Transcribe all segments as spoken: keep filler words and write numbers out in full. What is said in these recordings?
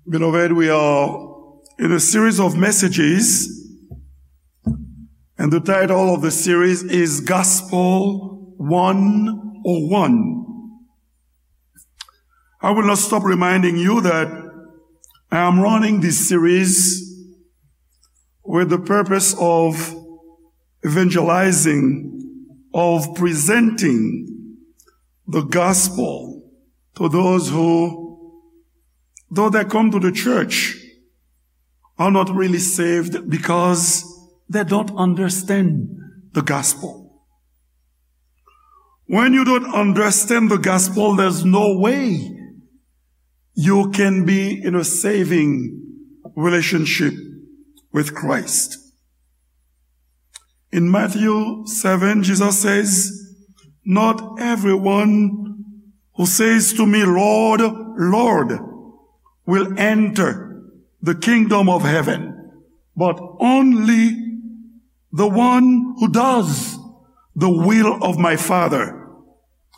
Beloved, we are in a series of messages, and the title of the series is Gospel one oh one. I will not stop reminding you that I am running this series with the purpose of evangelizing, of presenting the gospel to those who, though they come to the church, are not really saved because they don't understand the gospel. When you don't understand the gospel, there's no way you can be in a saving relationship with Christ. In Matthew seven, Jesus says, "Not everyone who says to me, 'Lord, Lord,' will enter the kingdom of heaven, but only the one who does the will of my Father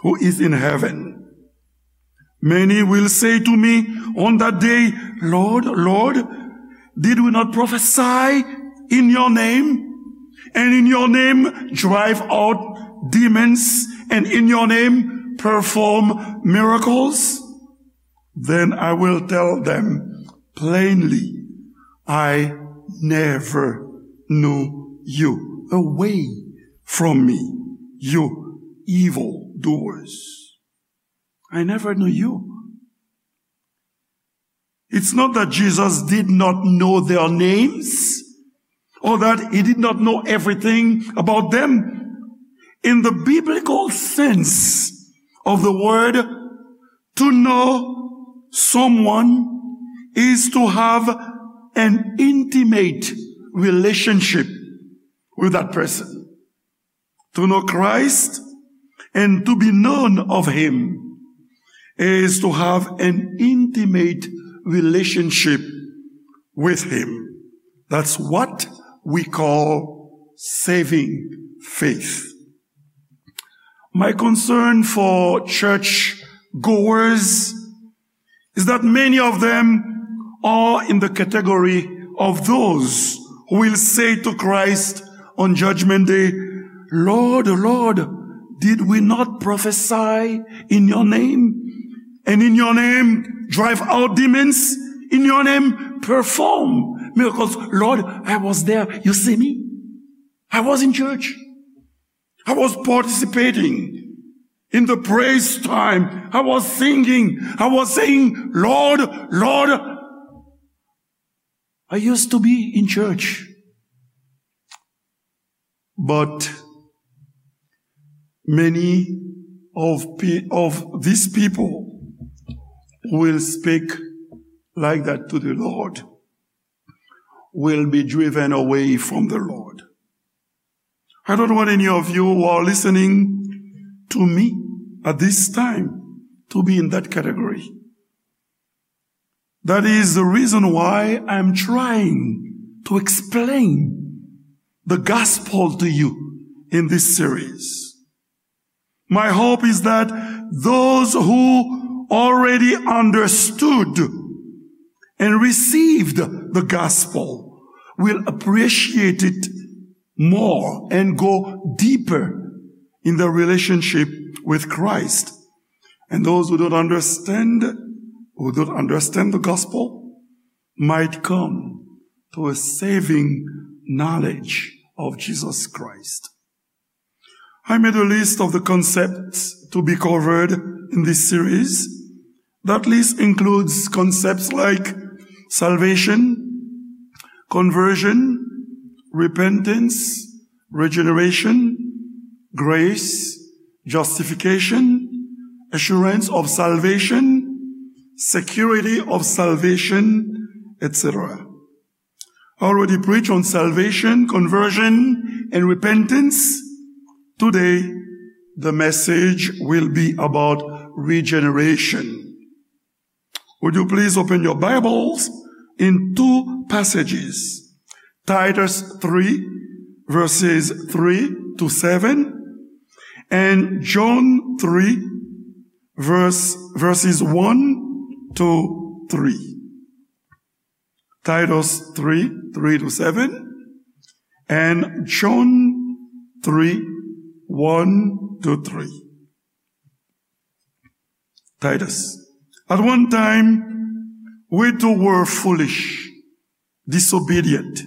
who is in heaven." Many will say to me on that day, 'Lord, Lord, did we not prophesy in your name, and in your name drive out demons, and in your name perform miracles?' Then I will tell them plainly, 'I never knew you. Away from me, you evil doers.' I never knew you. It's not that Jesus did not know their names or that he did not know everything about them. In the biblical sense of the word, to know someone is to have an intimate relationship with that person. To know Christ and to be known of him is to have an intimate relationship with him. That's what we call saving faith. My concern for church goers is that many of them are in the category of those who will say to Christ on Judgment Day, "Lord, Lord, did we not prophesy in your name? And in your name drive out demons? In your name perform miracles? Lord, I was there. You see me? I was in church. I was participating in the praise time. I was singing. I was saying, 'Lord, Lord.'" I used to be in church. But many of, pe- of these people who will speak like that to the Lord will be driven away from the Lord. I don't want any of you who are listening to me at this time to be in that category. That is the reason why I'm trying to explain the gospel to you in this series. My hope is that those who already understood and received the gospel will appreciate it more and go deeper in their relationship with Christ. And those who don't understand, who don't understand the gospel, might come to a saving knowledge of Jesus Christ. I made a list of the concepts to be covered in this series. That list includes concepts like salvation, conversion, repentance, regeneration, grace, justification, assurance of salvation, security of salvation, et cetera. I already preached on salvation, conversion, and repentance. Today, the message will be about regeneration. Would you please open your Bibles in two passages? Titus three, verses three to seven, and John three, verse, verses one to three. Titus three, three to seven, and John three, one to three. Titus. At one time, we too were foolish, disobedient,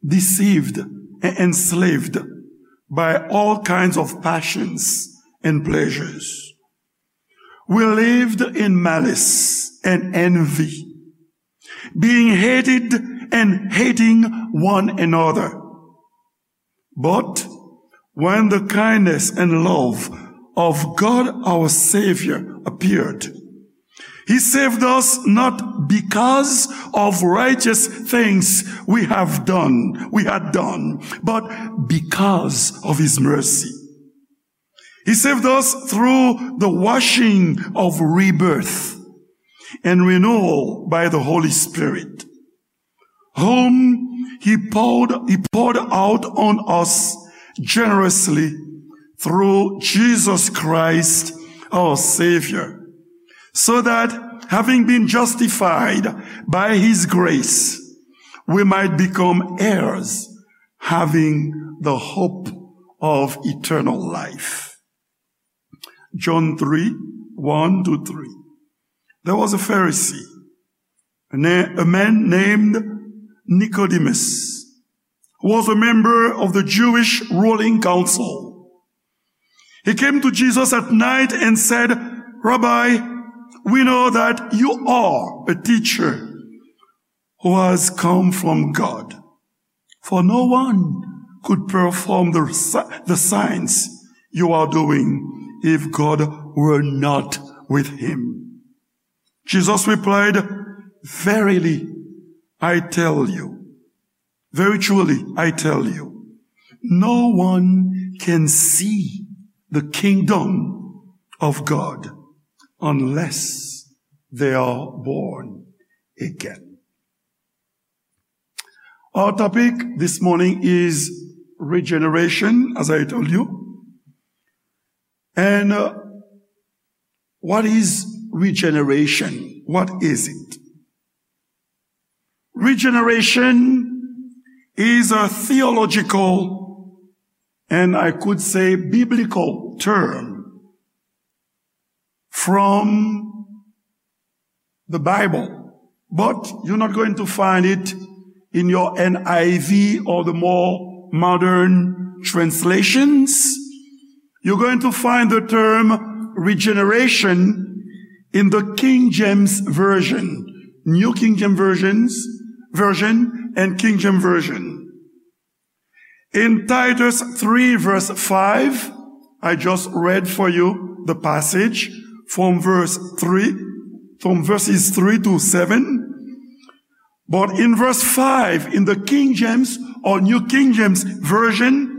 deceived, and enslaved by all kinds of passions and pleasures. We lived in malice and envy, being hated and hating one another. But when the kindness and love of God our Savior appeared, He saved us not because of righteous things we have done, we had done, but because of His mercy. He saved us through the washing of rebirth and renewal by the Holy Spirit, whom He poured, He poured out on us generously through Jesus Christ, our Savior, so that, having been justified by His grace, we might become heirs, having the hope of eternal life. John three, one to three. There was a Pharisee, a na-, a man named Nicodemus, who was a member of the Jewish ruling council. He came to Jesus at night and said, "Rabbi, we know that you are a teacher who has come from God. For no one could perform the si-, the signs you are doing if God were not with him." Jesus replied, "Verily, I tell you, very truly, I tell you, no one can see the kingdom of God unless they are born again." Our topic this morning is regeneration, as I told you. And, uh, what is regeneration? What is it? Regeneration is a theological and, I could say, biblical term from the Bible, but you're not going to find it in your N I V or the more modern translations. You're going to find the term regeneration in the King James Version, New King James Versions, Version, and King James Version. In Titus three verse five, I just read for you the passage from verse three, from verses three to seven. But in verse five, in the King James or New King James Version,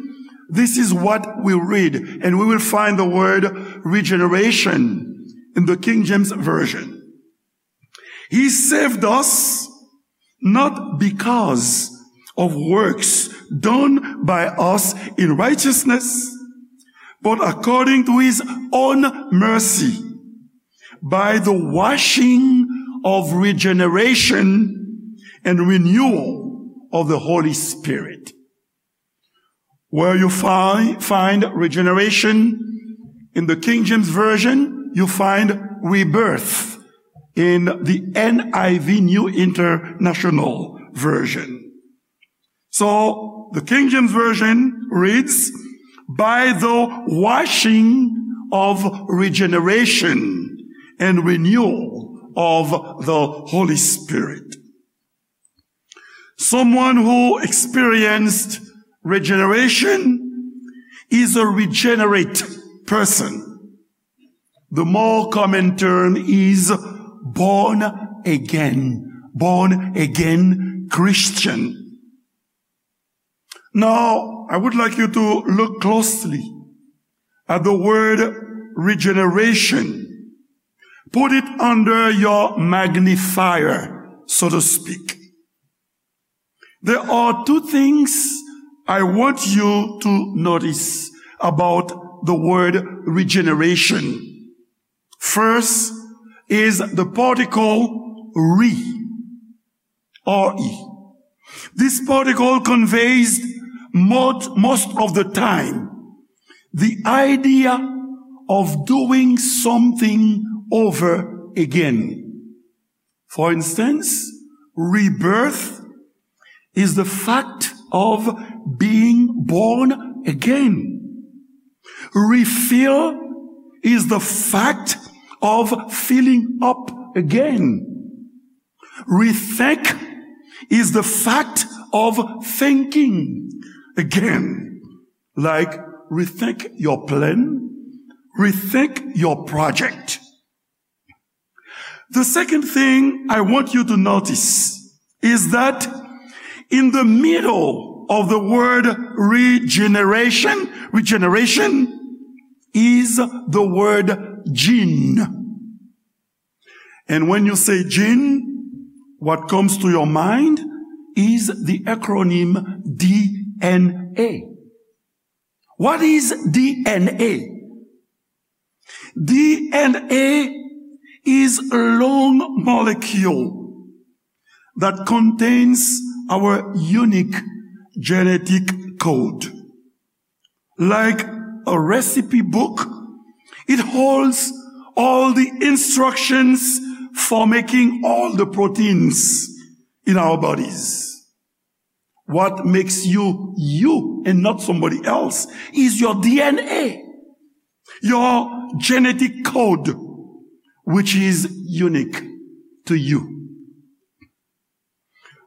this is what we read, and we will find the word regeneration in the King James Version. He saved us not because of works done by us in righteousness, but according to his own mercy, by the washing of regeneration and renewal of the Holy Spirit. Where you find, find regeneration in the King James Version, you find rebirth in the N I V, New International Version. So, the King James Version reads, "By the washing of regeneration and renewal of the Holy Spirit." Someone who experienced regeneration is a regenerate person. The more common term is born again, born again Christian. Now, I would like you to look closely at the word regeneration. Put it under your magnifier, so to speak. There are two things I want you to notice about the word regeneration. First is the particle re. R E. This particle conveys most, most of the time the idea of doing something over again. For instance, rebirth is the fact of being born again. Refill is the fact of filling up again. Rethink is the fact of thinking again. Like, rethink your plan, rethink your project. The second thing I want you to notice is that in the middle of the word regeneration, regeneration is the word gene. And when you say gene, what comes to your mind is the acronym D N A. What is D N A? D N A is a long molecule that contains our unique genetic code. Like a recipe book, it holds all the instructions for making all the proteins in our bodies. What makes you you and not somebody else is your D N A, your genetic code, which is unique to you.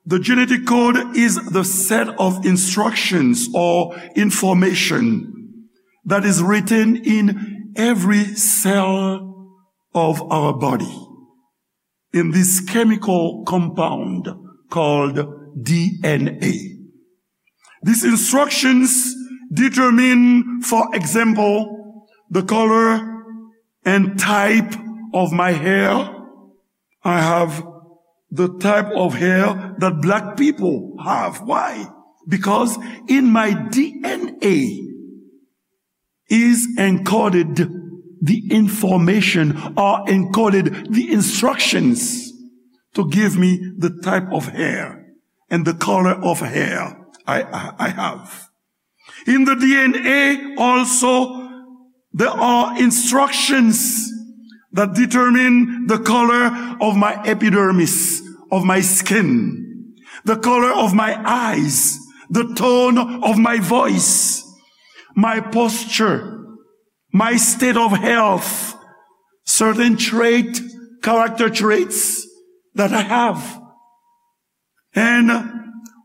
The genetic code is the set of instructions or information that is written in every cell of our body, in this chemical compound called D N A. These instructions determine, for example, the color and type of my hair. I have the type of hair that black people have. Why? Because in my D N A is encoded the information or encoded the instructions to give me the type of hair and the color of hair I, I, I have. In the D N A also, there are instructions that determine the color of my epidermis, of my skin, the color of my eyes, the tone of my voice, my posture, my state of health, certain trait, character traits that I have. And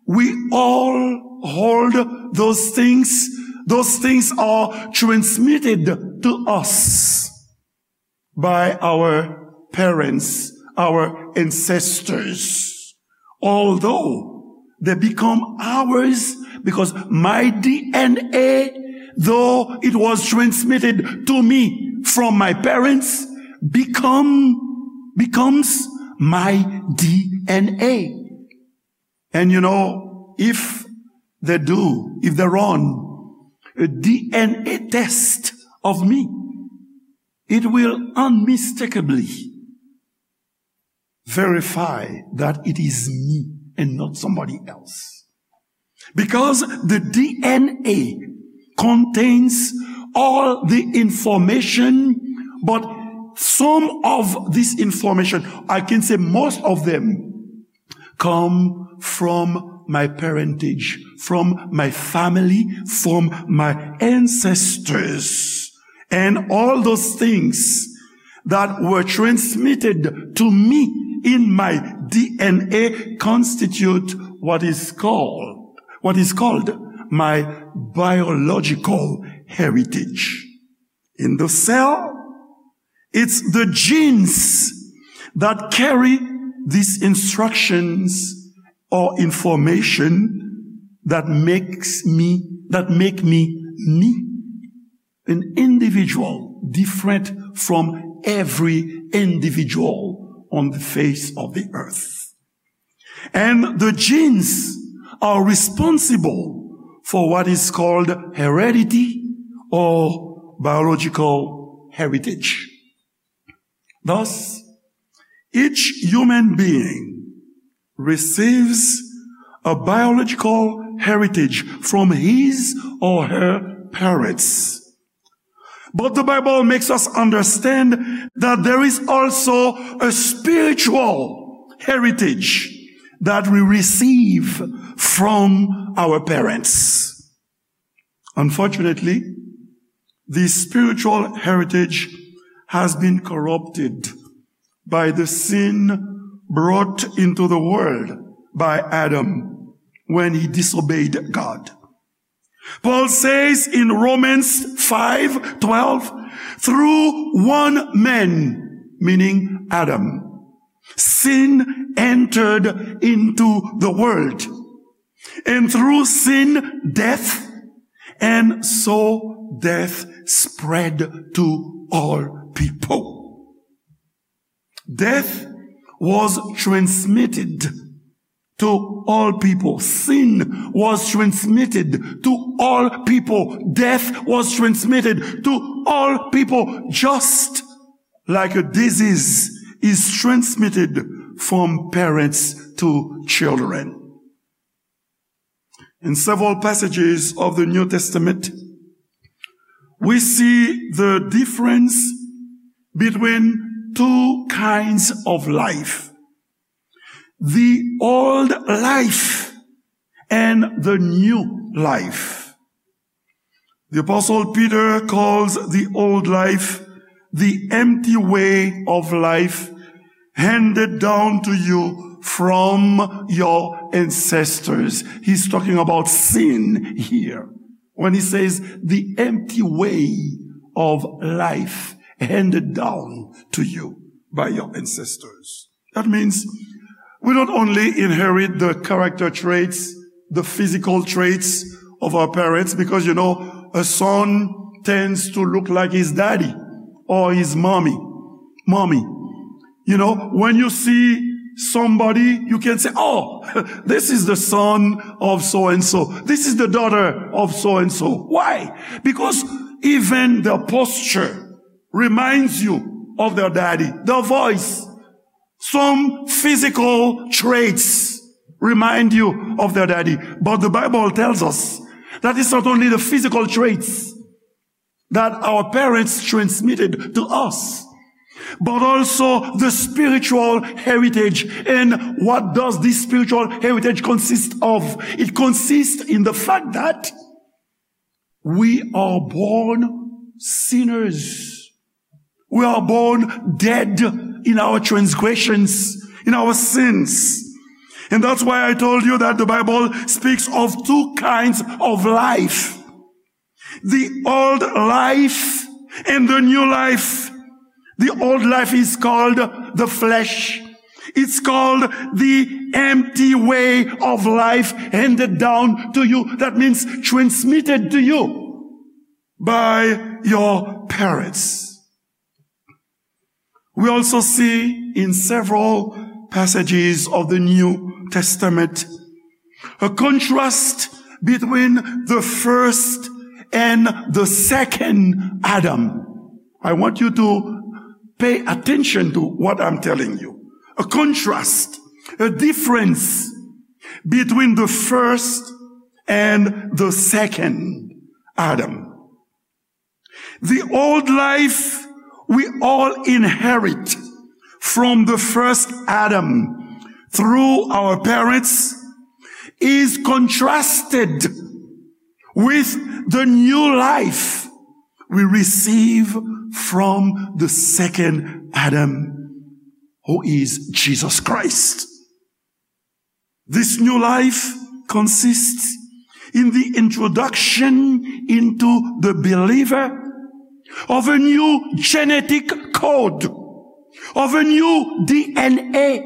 we all hold those things. Those things are transmitted to us by our parents, our ancestors. Although they become ours because my D N A, though it was transmitted to me from my parents, become, becomes my D N A. And you know, if they do, if they run a D N A test of me, it will unmistakably verify that it is me and not somebody else. Because the D N A contains all the information, but some of this information, I can say most of them, come from my parentage, from my family, from my ancestors. And all those things that were transmitted to me in my D N A constitute what is called, what is called my biological heritage. In the cell, it's the genes that carry these instructions or information that makes me, that make me me, an individual different from every individual on the face of the earth. And the genes are responsible for what is called heredity or biological heritage. Thus, each human being receives a biological heritage from his or her parents. But the Bible makes us understand that there is also a spiritual heritage that we receive from our parents. Unfortunately, this spiritual heritage has been corrupted by the sin brought into the world by Adam when he disobeyed God. Paul says in Romans five twelve, "Through one man," meaning Adam, "sin entered into the world. And through sin, death, and so death spread to all people." Death was transmitted to all people. Sin was transmitted to all people. Death was transmitted to all people, just like a disease is transmitted from parents to children. In several passages of the New Testament, we see the difference between two kinds of life, the old life and the new life. The Apostle Peter calls the old life the empty way of life handed down to you from your ancestors. He's talking about sin here when he says the empty way of life handed down to you by your ancestors. That means we don't only inherit the character traits, the physical traits of our parents, because, you know, a son tends to look like his daddy or his mommy. Mommy. You know, when you see somebody, you can say, "Oh, this is the son of so and so. This is the daughter of so and so." Why? Because even the posture reminds you of their daddy. The voice, some physical traits remind you of their daddy. But the Bible tells us that it's not only the physical traits that our parents transmitted to us, but also the spiritual heritage. And what does this spiritual heritage consist of? It consists in the fact that we are born sinners. We are born dead in our transgressions, in our sins. And that's why I told you that the Bible speaks of two kinds of life. The old life and the new life. The old life is called the flesh. It's called the empty way of life handed down to you. That means transmitted to you by your parents. We also see in several passages of the New Testament a contrast between the first and the second Adam. I want you to pay attention to what I'm telling you. A contrast, a difference between the first and the second Adam. The old life we all inherit from the first Adam through our parents is contrasted with the new life we receive from the second Adam, who is Jesus Christ. This new life consists in the introduction into the believer of a new genetic code, of a new D N A.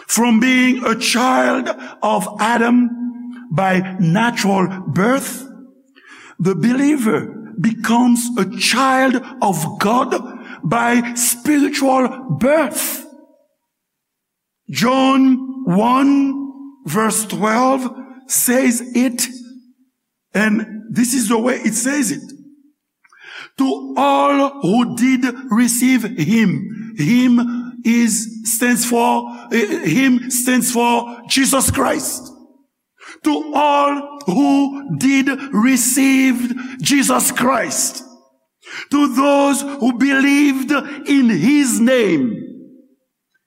From being a child of Adam by natural birth, the believer becomes a child of God by spiritual birth. John one verse twelve says it, and this is the way it says it. To all who did receive him, him is stands for eh, him stands for Jesus Christ. To all who did receive Jesus Christ, to those who believed in his name,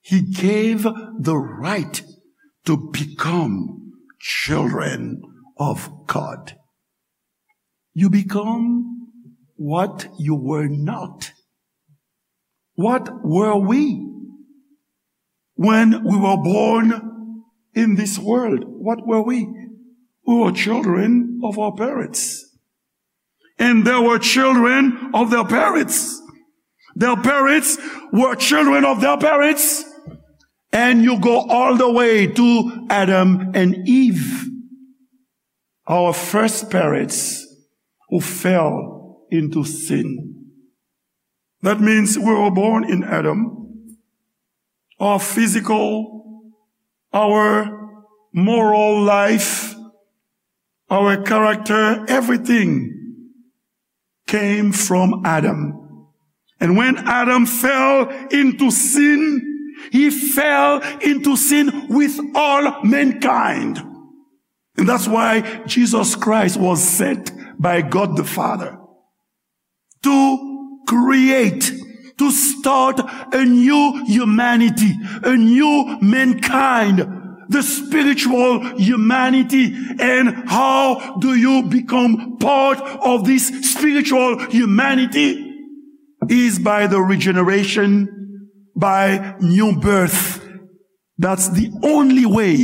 he gave the right to become children of God. You become what you were not. What were we when we were born in this world? What were we? We were children of our parents. And there were children of their parents. Their parents were children of their parents. And you go all the way to Adam and Eve, our first parents who fell into sin. That means we were born in Adam. Our physical, our moral life, our character, everything came from Adam. And when Adam fell into sin, he fell into sin with all mankind. And that's why Jesus Christ was sent by God the Father to create, to start a new humanity, a new mankind, the spiritual humanity. And how do you become part of this spiritual humanity? Is by the regeneration, by new birth. That's the only way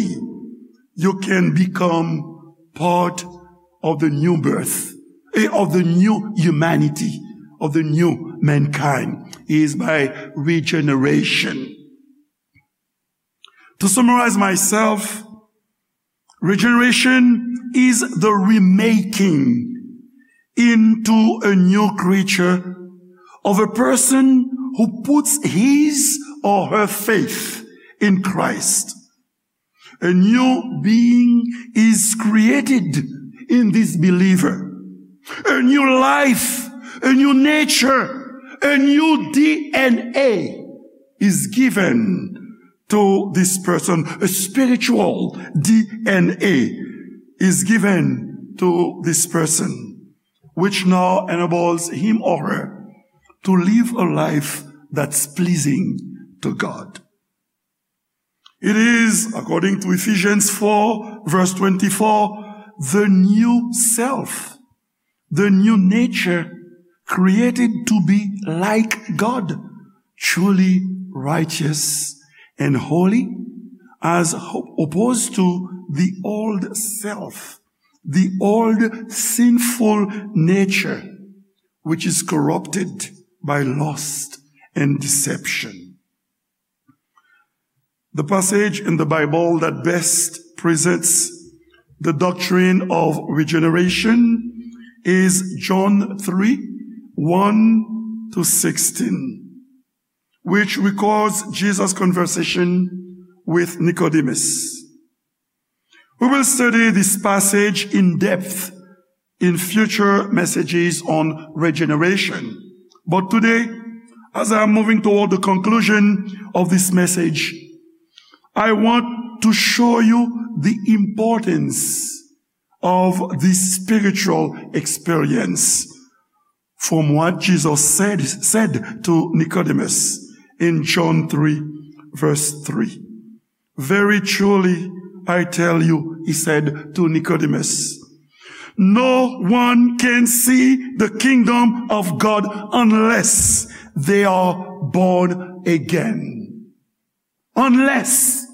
you can become part of the new birth, eh, of the new humanity, of the new mankind, is by regeneration. To summarize myself, regeneration is the remaking into a new creature of a person who puts his or her faith in Christ. A new being is created in this believer. A new life, a new nature, a new D N A is given to this person. A spiritual D N A is given to this person, which now enables him or her to live a life that's pleasing to God. It is, according to Ephesians four, verse twenty-four, the new self, the new nature, created to be like God, truly righteous and holy, as ho-, opposed to the old self, the old sinful nature, which is corrupted by lust and deception. The passage in the Bible that best presents the doctrine of regeneration is John three, one to sixteen, which records Jesus' conversation with Nicodemus. We will study this passage in depth in future messages on regeneration. But today, as I am moving toward the conclusion of this message, I want to show you the importance of this spiritual experience from what Jesus said, said to Nicodemus in John three, verse three. "Very truly, I tell you," he said to Nicodemus, "no one can see the kingdom of God unless they are born again." Unless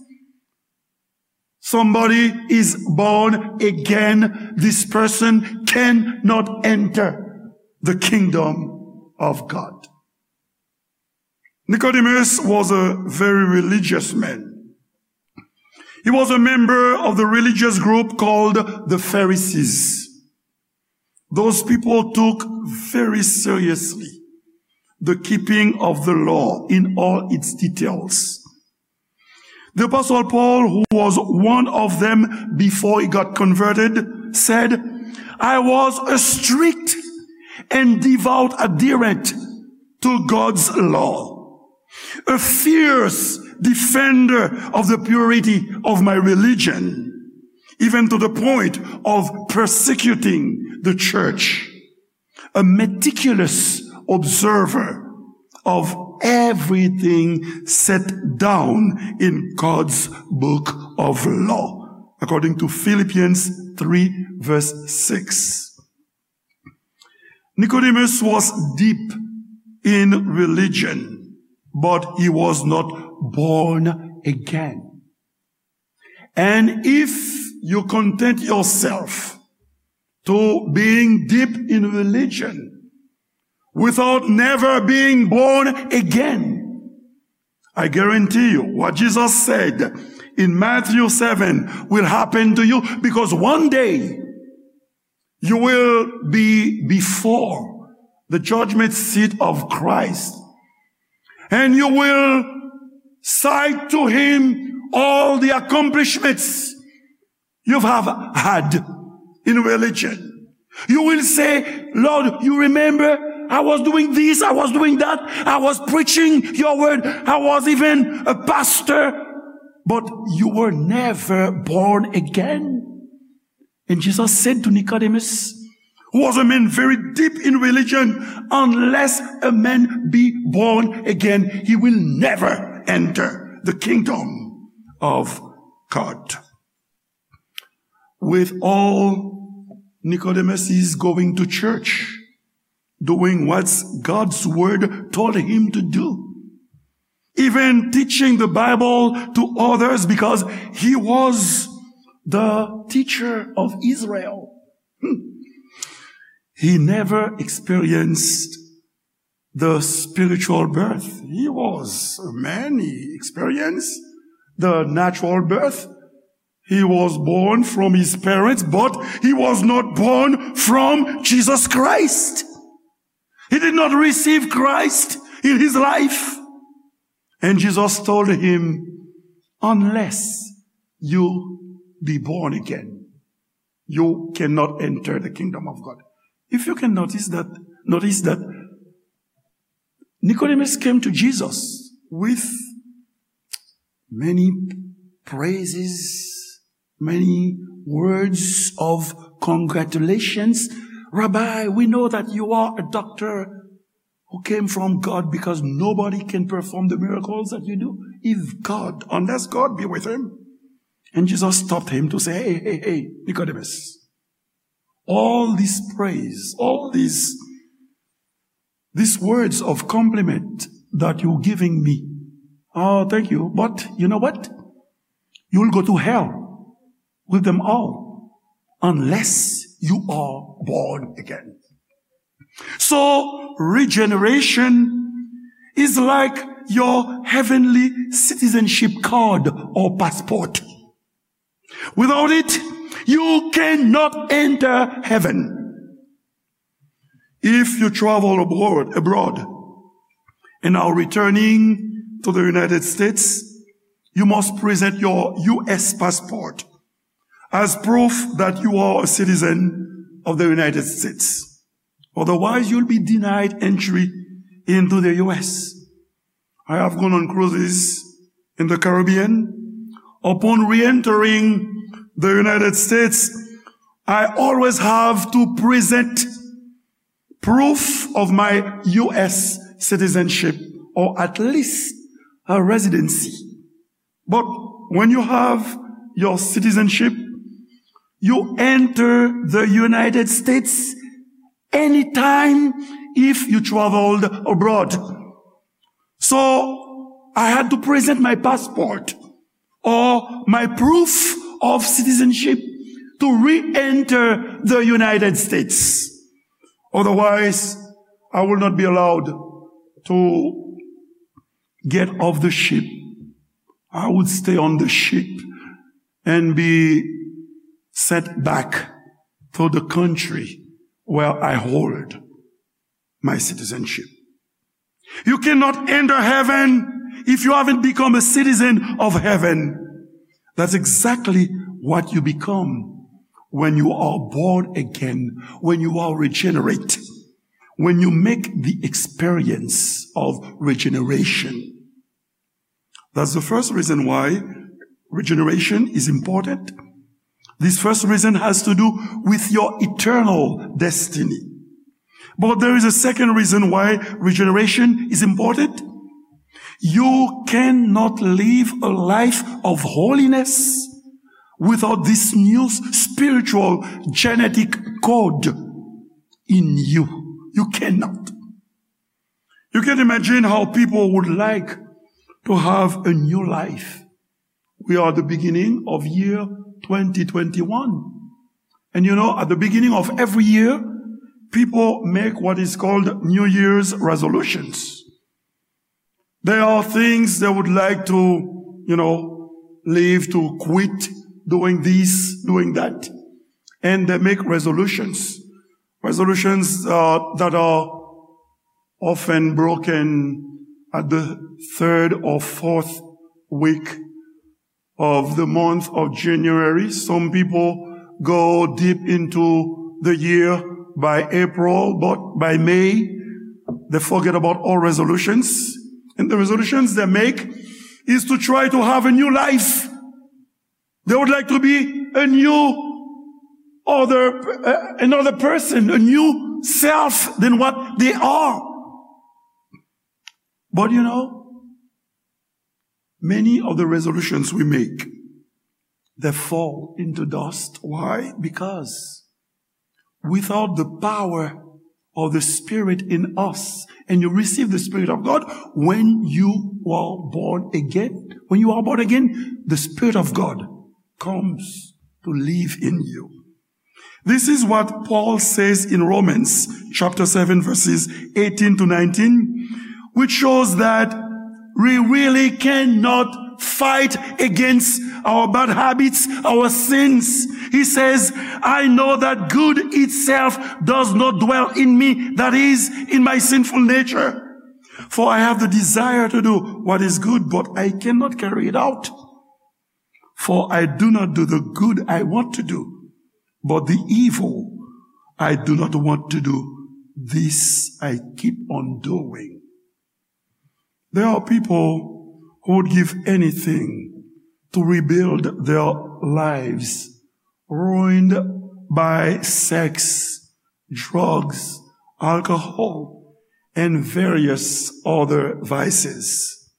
somebody is born again, this person cannot enter the kingdom of God. Nicodemus was a very religious man. He was a member of the religious group called the Pharisees. Those people took very seriously the keeping of the law in all its details. The Apostle Paul, who was one of them before he got converted, said, "I was a strict and devout adherent to God's law. a fierce defender of the purity of my religion, even to the point of persecuting the church, a meticulous observer of everything set down in God's book of law, according to Philippians three, verse six. Nicodemus was deep in religion, but he was not born again. And if you content yourself to being deep in religion without never being born again, I guarantee you what Jesus said in Matthew seven will happen to you, because one day you will be before the judgment seat of Christ, and you will cite to him all the accomplishments you have had in religion. You will say, "Lord, you remember I was doing this, I was doing that, I was preaching your word, I was even a pastor, but you were never born again." And Jesus said to Nicodemus, who was a man very deep in religion, "Unless a man be born again, he will never enter the kingdom of God." With all Nicodemus is going to church, doing what God's word told him to do, even teaching the Bible to others, because he was the teacher of Israel. Hmm. He never experienced the spiritual birth. He was a man, he experienced the natural birth. He was born from his parents, but he was not born from Jesus Christ. He did not receive Christ in his life. And Jesus told him, "Unless you be born again, you cannot enter the kingdom of God." If you can notice that, notice that Nicodemus came to Jesus with many praises, many words of congratulations. "Rabbi, we know that you are a doctor who came from God, because nobody can perform the miracles that you do if God, unless God be with him." And Jesus stopped him to say, "Hey, hey, hey, Nicodemus, all this praise, all these, these words of compliment that you're giving me, oh, thank you, but you know what? You'll go to hell with them all unless you are born again." So, regeneration is like your heavenly citizenship card or passport. Without it, you cannot enter heaven. If you travel abroad, abroad and are returning to the United States, you must present your U S passport as proof that you are a citizen of the United States. Otherwise, you'll be denied entry into the U S. I have gone on cruises in the Caribbean. Upon re-entering the United States, I always have to present proof of my U S citizenship, or at least a residency. But when you have your citizenship, you enter the United States anytime if you traveled abroad. So I had to present my passport or my proof of citizenship to re-enter the United States. Otherwise, I will not be allowed to get off the ship. I would stay on the ship and be sent back to the country where I hold my citizenship. You cannot enter heaven if you haven't become a citizen of heaven. That's exactly what you become when you are born again, when you are regenerate, when you make the experience of regeneration. That's the first reason why regeneration is important. This first reason has to do with your eternal destiny. But there is a second reason why regeneration is important. You cannot live a life of holiness without this new spiritual genetic code in you. You cannot. You can imagine how people would like to have a new life. We are at the beginning of year twenty twenty-one. And you know, at the beginning of every year, people make what is called New Year's resolutions. There are things they would like to, you know, leave, to quit doing this, doing that. And they make resolutions. Resolutions uh, that are often broken at the third or fourth week of the month of January. Some people go deep into the year by April, but by May, they forget about all resolutions. And the resolutions they make is to try to have a new life. They would like to be a new other, uh, another person, a new self than what they are. But you know, many of the resolutions we make, they fall into dust. Why? Because without the power of the Spirit in us, and you receive the Spirit of God when you are born again. When you are born again, the Spirit of God comes to live in you. This is what Paul says in Romans chapter seven, verses eighteen to nineteen, which shows that we really cannot fight against our bad habits, our sins. He says, "I know that good itself does not dwell in me, that is, in my sinful nature. For I have the desire to do what is good, but I cannot carry it out. For I do not do the good I want to do, but the evil I do not want to do, this I keep on doing." There are people who would give anything to rebuild their lives ruined by sex, drugs, alcohol, and various other vices.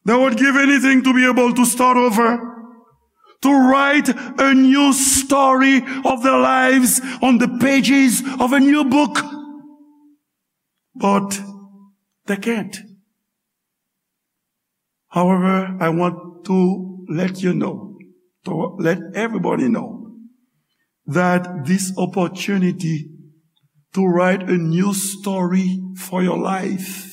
They would give anything to be able to start over, to write a new story of their lives on the pages of a new book. But they can't. However, I want to let you know, to let everybody know, that this opportunity to write a new story for your life,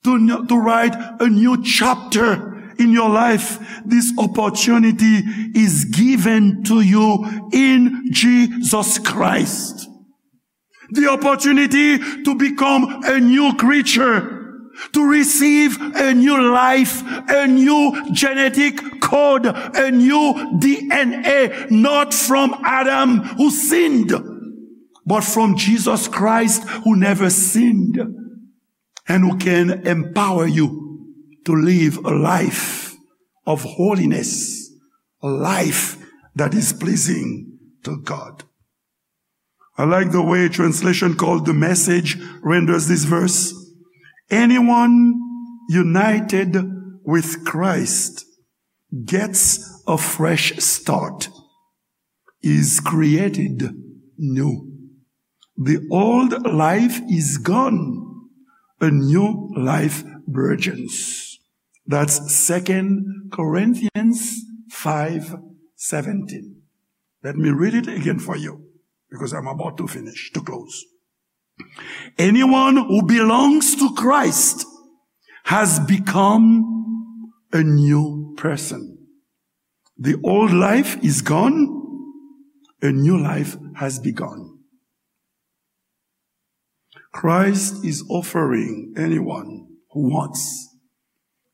to, to write a new chapter in your life, this opportunity is given to you in Jesus Christ. The opportunity to become a new creature, to receive a new life, a new genetic code, a new D N A, not from Adam who sinned, but from Jesus Christ who never sinned and who can empower you to live a life of holiness, a life that is pleasing to God. I like the way translation called The Message renders this verse. Anyone united with Christ gets a fresh start, is created new. The old life is gone, a new life burgeons. That's Second Corinthians five seventeen. Let me read it again for you, because I'm about to finish, to close. Anyone who belongs to Christ has become a new person. The old life is gone, a new life has begun. Christ is offering anyone who wants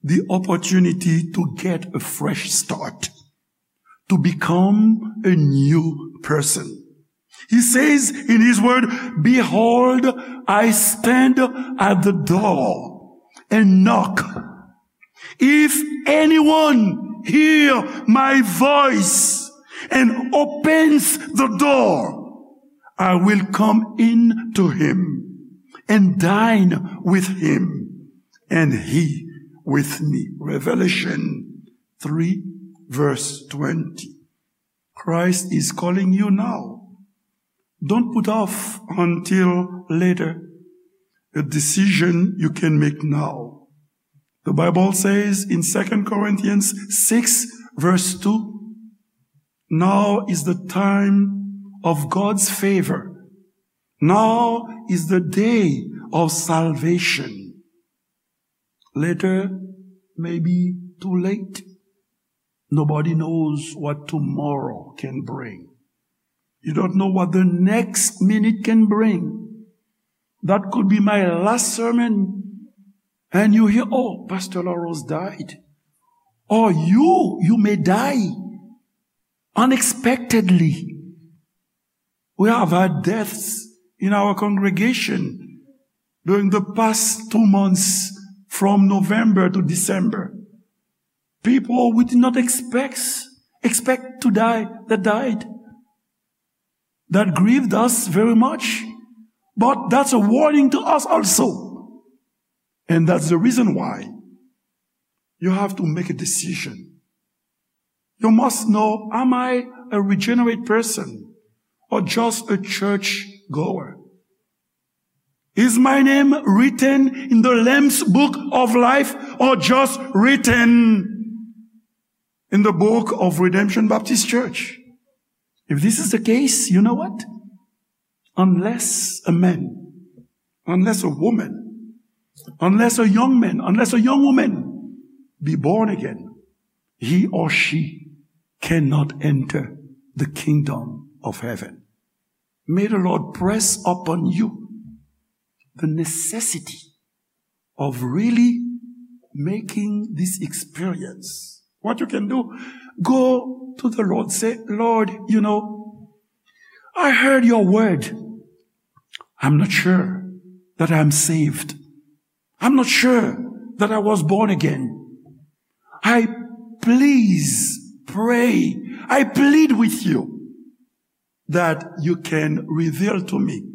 the opportunity to get a fresh start, to become a new person. He says in his word, "Behold, I stand at the door and knock. If anyone hear my voice and opens the door, I will come in to him and dine with him and he with me. Revelation three, verse twenty. Christ is calling you now. Don't put off until later a decision you can make now. The Bible says in Second Corinthians six, verse two, "Now is the time of God's favor. Now is the day of salvation." Later may be too late. Nobody knows what tomorrow can bring. You don't know what the next minute can bring. That could be my last sermon. And you hear, "Oh, Pastor Larose died." Or you, you may die unexpectedly. We have had deaths in our congregation during the past two months, from November to December. People we did not expect, expect to die, that died. That grieved us very much. But that's a warning to us also. And that's the reason why you have to make a decision. You must know, am I a regenerate person or just a church goer? Is my name written in the Lamb's Book of Life or just written in the book of Redemption Baptist Church? If this is the case, you know what? Unless a man, unless a woman, unless a young man, unless a young woman be born again, he or she cannot enter the kingdom of heaven. May the Lord press upon you the necessity of really making this experience. What you can do, go to the Lord, say, "Lord, you know, I heard your word. I'm not sure that I'm saved. I'm not sure that I was born again. I please pray, I plead with you that you can reveal to me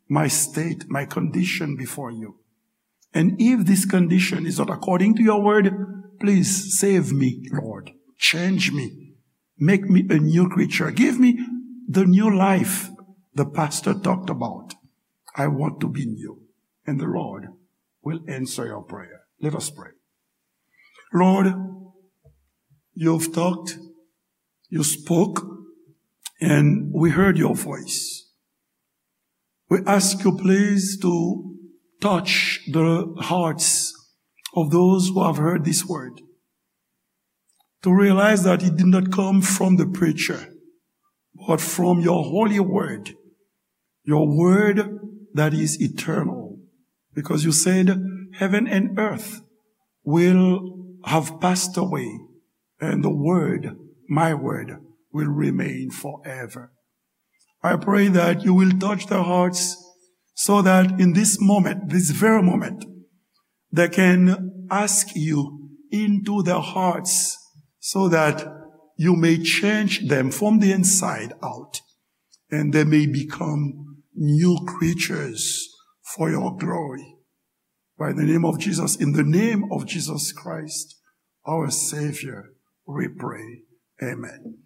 my state, my condition before you. And if this condition is not according to your word, please save me, Lord. Change me. Make me a new creature. Give me the new life the pastor talked about. I want to be new." And the Lord will answer your prayer. Let us pray. Lord, you've talked, you spoke, and we heard your voice. We ask you, please, to touch the hearts of those who have heard this word, to realize that it did not come from the preacher, but from your holy word, your word that is eternal. Because you said, "Heaven and earth will have passed away, and the word, my word, will remain forever." I pray that you will touch their hearts so that in this moment, this very moment, they can ask you into their hearts so that you may change them from the inside out, and they may become new creatures for your glory. By the name of Jesus, in the name of Jesus Christ, our Savior, we pray. Amen.